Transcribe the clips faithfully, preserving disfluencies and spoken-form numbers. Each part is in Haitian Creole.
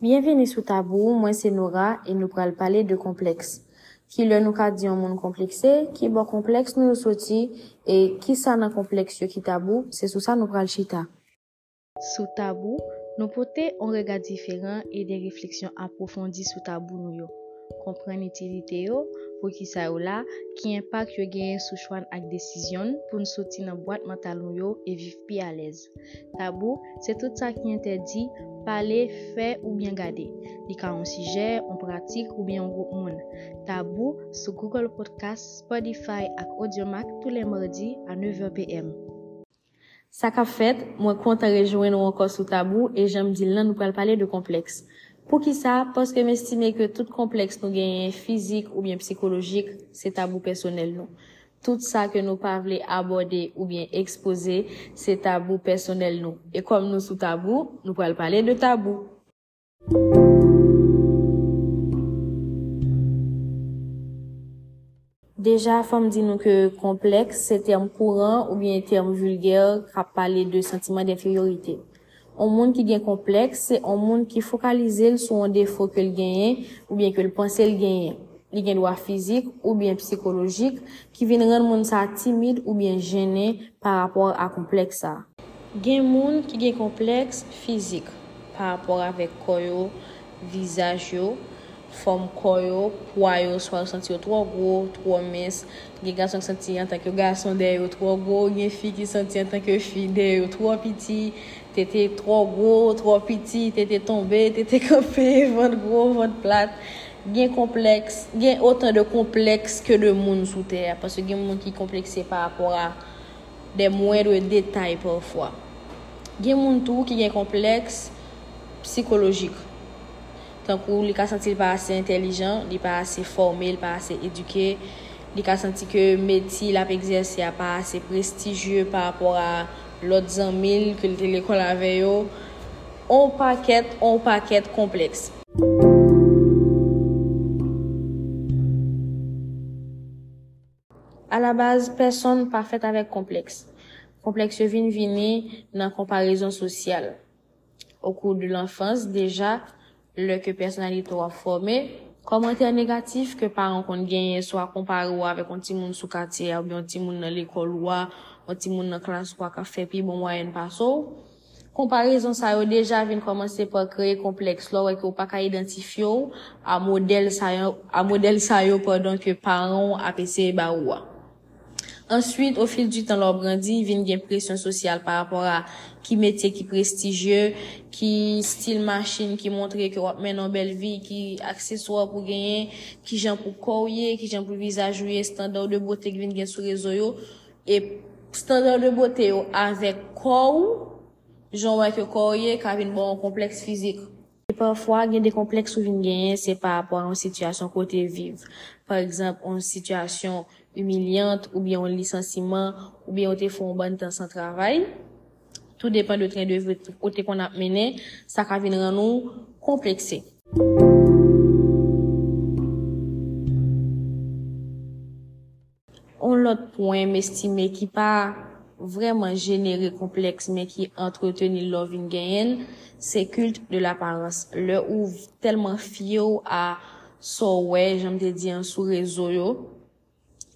Byenvini sou Tabou, mwen se Nora e nou pral pale de konplèks. Kilè nou ka di yon moun konplekse, kibò konplèks nou yo soti e kisa nan konplèks yo ki tabou, se sou sa nou pral chita. Sou Tabou, nou pote yon rega diferan e de refleksyon apwofondi sou tabou nou yo. Konprann itilite yo, poukisa yo la, ki enpak yo genyen sou chwa n ak desizyon n pou n soti nan bwat mantal nou yo e viv pi alèz. Tabou, se tout sa ki entèdi, pale, fè oubyen gade. Li ka yon sijè, yon pratik oubyen yon gwoup moun. Tabou sou Google Podcast, Spotify ak Audiomack tou lè madi a nèv è p m. Sa k ap fèt, mwen kontan rejwenn ou ankò sou Tabou e jan m di l lan, nou pral pale de konplèks. Poukisa? Paske m estime ke tout konplèks nou genyen, fizik oubyen psikolojik, se tabou pèsonèl nou. Tout sa ke nou pa vle abòde oubyen ekspoze, se tabou pèsonèl nou. E kòm nou sou Tabou, nou pral pale de tabou. Deja, fò m di nou ke konplèks se tèm kouran oubyen tèm vilgè k ap pale de santiman denferyorite. Yon moun ki gen konplèks se yon moun ki fokalize l sou yon defo ke l genyen oubyen ke l panse l genyen. Li gen dwa fizik oubyen psikolojik ki vin rann moun sa a timid oubyen jennen pa rapò a konplèks sa a. Gen moun ki gen konplèks fizik pa rapò avèk kò yo, vizaj yo, fòm kò yo, pwa yo, swa yo santi yo twò gwo, twò mens. Gen gason ki santi antanke gason dèyè yo twò gwo, gen fi ki santi antanke fi dèyè yo twò piti, tete twò gwo, twò piti, tete tonbe, tete kanpe, vant gwo, vant plat. Gen konplèks, gen otan de konplèks ke de moun sou tè a, paske gen moun ki konplekse pa rapò a de mwendre detay pafwa. Gen moun tou ki gen konplèks sikolojik. Tankou li ka santi l pa ase entèlijan, li pa ase fòme, li pa ase edike, li ka santi ke metye l ap egzèse a pa ase prestijye pa rapò a lòt zanmi l ke l te lekòl avè yo. On pakèt, on pakèt konplèks. Alabaz, pèsonn pa fèt avèk konplèks. Konplèks yo vin vini nan konparezon sosyal. Au cours de l'enfance, deja, lè ke pèsonalite w ap fòme, kòmantè negatif ke paran w konn genyen, swa konpare w avèk yon timoun sou katye a, oubyen yon timoun nan lekòl ou a, yon timoun nan klas ou a k ap fè pi bon mwayèn pase w, konparezon sa yo deja vin kòmanse pa kreye konplèks lè w wè ke w pa ka idantifye w a modèl sa yo, a modèl sa yo pandan ke paran w ap eseye ba ou a. Answit, au fil du temps, lè w ap grandi, vin gen presyon sosyal pa rapò a ki metye ki prestijye, ki stil machin ki montre ke w ap mennen yon bèl vi, ki akseswa pou genyen, kijan pou kò w ye, kijan pou vizaj ou ye, estanda de bote ki vin gen sou rezo yo. E estanda de bote yo avèk kò w, jan w wè ke kò w ye, ka vin ba w yon konplèks fizik. E pafwa, gen de konplèks ou vin genyen, se pa rapò a yon sitiyasyon kote w viv. Pa egzanp, yon sitiyasyon imilyan, oubyen yon lisansiman, oubyen yo te fè yon bann tan san travay. Tou depann de tren de vi ou te konn ap mennen, sa ka vin rann ou konplekse. On lòt pwen m estime ki pa vrèman jenere konplèks, men ki antreteni l lè w vin genyen l, se culte de l'apparence. Lè ou tèlman fye w a sa w wè, jan m te di an, sou rezo yo,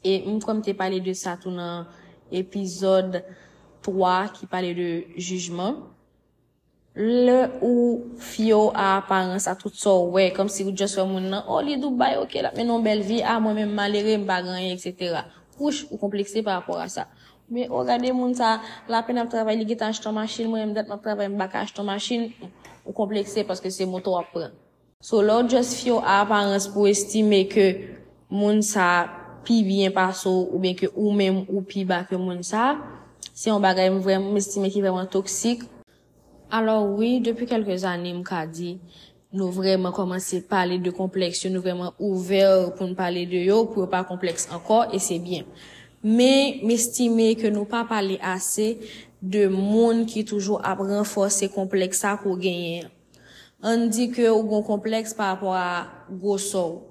e m kwè m te pale de sa tou nan epizòd twa ki pale de jijman. Lè ou fye w a aparans, a tout sa w wè, kòmsi ou just wè moun nan, o, li Dubai, oke, l ap mennen yon bèl vi, a, mwen menm malere, m pa gen anyen, etsetera. Wouch, ou konplekse pa rapò a sa. Men, o, gade moun sa, l apèn ap travay, li gentan achte yon machin, mwen menm dat m ap travay, m pa ka achte yon machin, ou konplekse paske se moto w ap pran. So, lè w just fye w a aparans pou w estime ke moun sa pi byen pase w oubyen ke ou menm ou pi ba ke moun sa, se yon bagay m vrèman, m estime ki vrèman toksik. Alò wi, depi kèlke zane m ka di, nou vrèman kòmanse pale de konplèks yo, nou vrèman ouvè pou n pale de yo, pou yo pa konplèks ankò, e se byen. Men, m estime ke nou pa pale ase de moun ki toujou ap ranfòse konplèks sa ke w genyen an. Ann di ke ou gen yon konplèks pa rapò a gwosè w.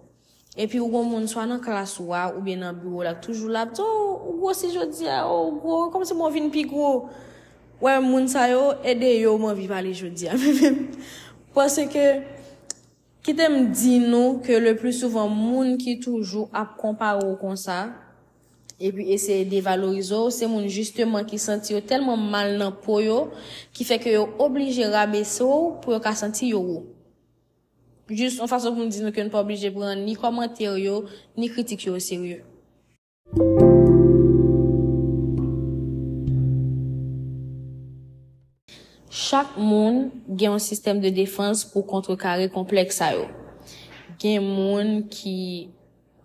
Epi ou gen yon moun swa nan klas ou a oubyen nan biwo w la k toujou la ap di, o, ou gwosi jodi a, o, ou gwo, kòmsi mwen vin pi gwo. Wè, moun sa yo, e de yo m anvi pale jodi a. Paske Kite m di nou ke le pli souvan moun ki toujou ap konpare w konsa, epi eseye devalorize w, se moun jisteman ki santi yo tèlman mal nan po yo, ki fè ke yo oblije rabese w pou yo ka santi yo wo. Jis yon fason pou m di nou ke n pa oblije pran ni kòmantè yo, ni kritik yo oserye. Chak moun gen yon sistèm de defans pou kontrekare konplèks sa yo. Gen moun ki,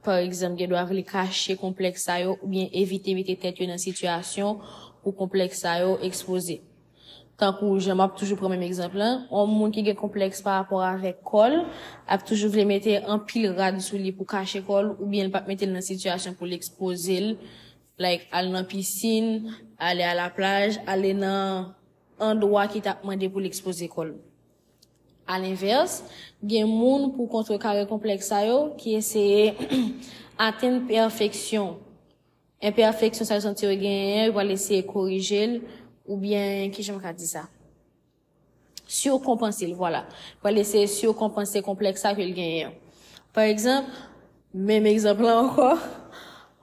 pa egzanp, gen dwa vle kache konplèks sa yo oubyen evite mete tèt yo nan sitiyasyon pou konplèks sa yo ekspoze. Tankou jan m ap toujou pran menm egzanp lan, yon moun ki gen konplèks pa rapò avèk kò l ap toujou vle mete anpil rad sou li pou kache kò l oubyen l p ap mete l nan sitiyasyon pou l ekspoze l, like al nan pisin, ale a la plaj, ale nan andwa ki t ap mande pou l ekspoze kò l. Alenvès, gen moun pou kontrekare konplèks sa yo ki eseye atenn pèfeksyon. Enpèfeksyon sa yo santi yo genyen an, yo pral eseye korije l, oubyen, kijan m ka di sa? Sikonpanse l, vwala. Pral eseye sikonpanse konplèks sa ke l genyen an. Pa egzanp, menm egzanp lan ankò,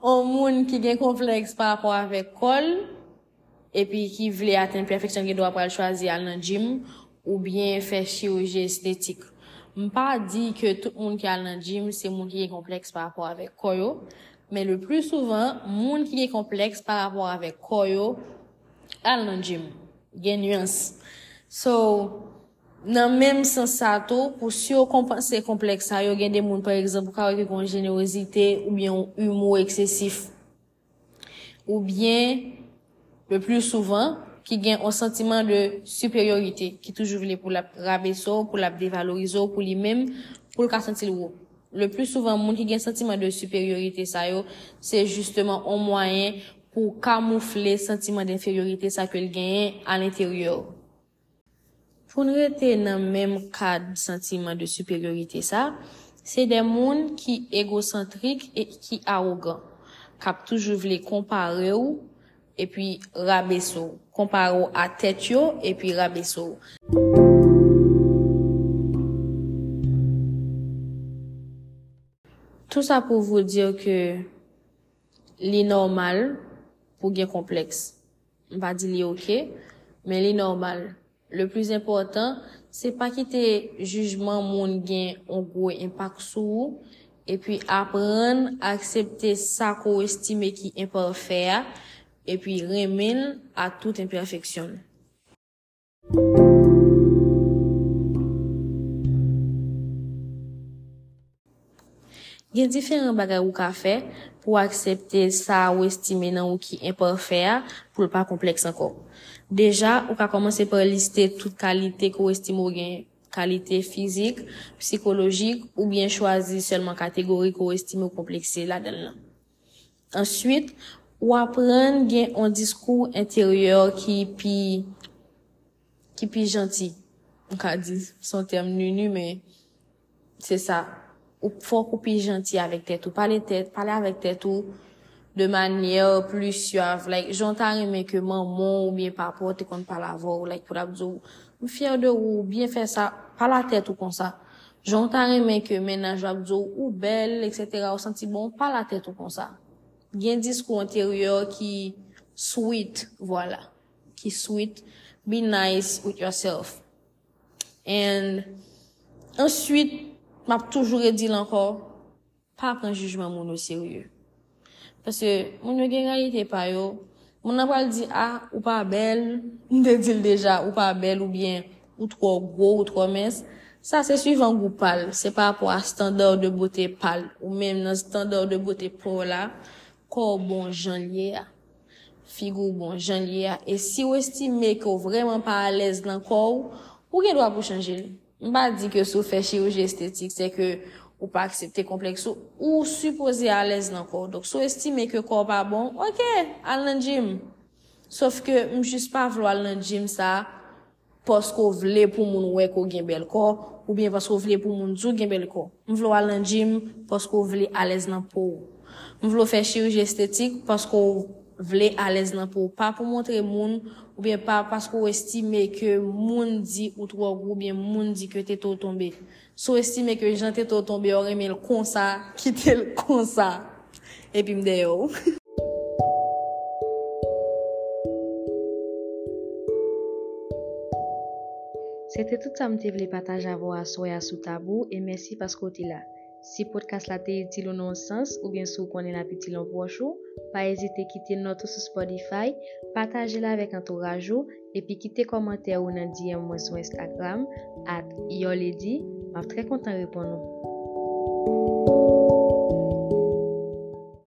yon moun ki gen konplèks pa rapò avèk kò l, epi ki vle atenn pèfeksyon, gen dwa pral chwazi al nan gym oubyen fè chiriji estetik. M pa di ke tout moun ki al nan gym se moun ki gen konplèks pa rapò avèk kò yo, men le pli souvan, moun ki gen konplèks pa rapò avèk kò yo al nan gym. Gen nyans. So, nan menm sans sa tou, pou sikonpanse konplèks sa yo, gen de moun, pa egzanp, ou ka wè ke gen yon jenerozite oubyen yon imo eksesif. Oubyen, le pli souvan, ki gen yon santiman de siperyorite, ki toujou vle pou l ap rabese w, pou l ap devalorize w, pou li menm, pou l ka santi l wo. Le pli souvan, moun ki gen santiman de siperyorite sa yo, se jisteman yon mwayen pou kamoufle santiman denferyorite sa ke l genyen alenteryè. Pou n rete nan menm kad santiman de siperyorite sa, se de moun ki egosantrik e ki awogan, k ap toujou vle konpare w epi rabese w, konpare w a tèt yo epi rabese w. Tout sa pou vous dire ke li nòmal pou gen konplèks. M pa di li oke, men li nòmal. Le pli enpòtan, se pa kite jijman moun gen yon gwo enpak sou ou, epi aprann aksepte sa ke w estime ki enpafè a, epi renmen l a tout enpèfeksyon l. Gen diferan bagay ou ka fè pou w aksepte sa ou estime nan ou ki enpafè a, pou l pa konplèks ankò. Deja, ou ka kòmanse pa liste tout kalite ke w estime w genyen, kalite fizik, sikolojik, oubyen chwazi sèlman kategori ke w estime w konplekse ladan l lan. Answit, ou aprann gen yon diskou enteryè ki pi, ki pi janti. M ka di, se yon tèm nini, men se sa. Ou fòk ou pi janti avèk tèt ou. Pale tèt, pale avèk tèt ou de manyè pli swav. Like, jan w ta renmen ke manman w oubyen papa w te konn pale avè w, like, pou l ap di w, "M fyè de ou, ou byen fè sa." Pale a tèt ou konsa. Jan w ta renmen ke mennaj ou ap di w, "Ou bèl, etsetera, ou santi bon," pale a tèt ou konsa. Gen diskou enteryè ki sweet, vwala, ki sweet. Be nice with yourself. And answit, m ap toujou redi l ankò, pa pran jijman moun oserye. Paske moun yo gen reyalite pa yo. Moun nan pral di, "A, ou pa bèl." M te di l deja, "Ou pa bèl," oubyen, "Ou twò gwo, ou twò mens." Sa se swivan gou pa l. Se pa rapò a standard de beauté pa l. Ou menm nan standard de beauté pa w la, kò w bon jan l ye a. Figi w bon jan l ye a. E si w estime ke w vrèman pa alèz nan kò w, ou gen dwa pou chanje l. M pa di ke si w fè chiriji estetik, se ke ou pa aksepte konplèks ou, ou sipoze alèz nan kò w. Donk, si w estime ke kò w pa bon, oke, al nan gym. Sof ke m jis pa vle w al nan gym sa, paske w vle pou moun wè ke w gen bèl kò, oubyen paske w vle pou moun di w gen bèl kò. M vle w al nan gym paske w vle alèz nan po w. M vle w fè chiriji estetik paske w Vle alèz nan po w, pa pou montre moun, oubyen pa paske w estime ke moun di ou twò gwo, oubyen moun di ke tete w tonbe. Si w estime ke jan tete w tonbe a, w renmen l konsa, kite l konsa. Epi m dèyè w. Se te tout sa m te vle pataje avè w aswè a sou Tabou, e mèsi paske w te la. Si podcast la te itil ou nan yon sans, oubyen si w konnen l ap itil yon pwòch ou, pa ezite kite nòt ou sou Spotify, pataje l avèk antouraj ou, epi kite kòmantè ou nan D M mwen sou Instagram, at Your Lady, m ap trè kontan reponn ou.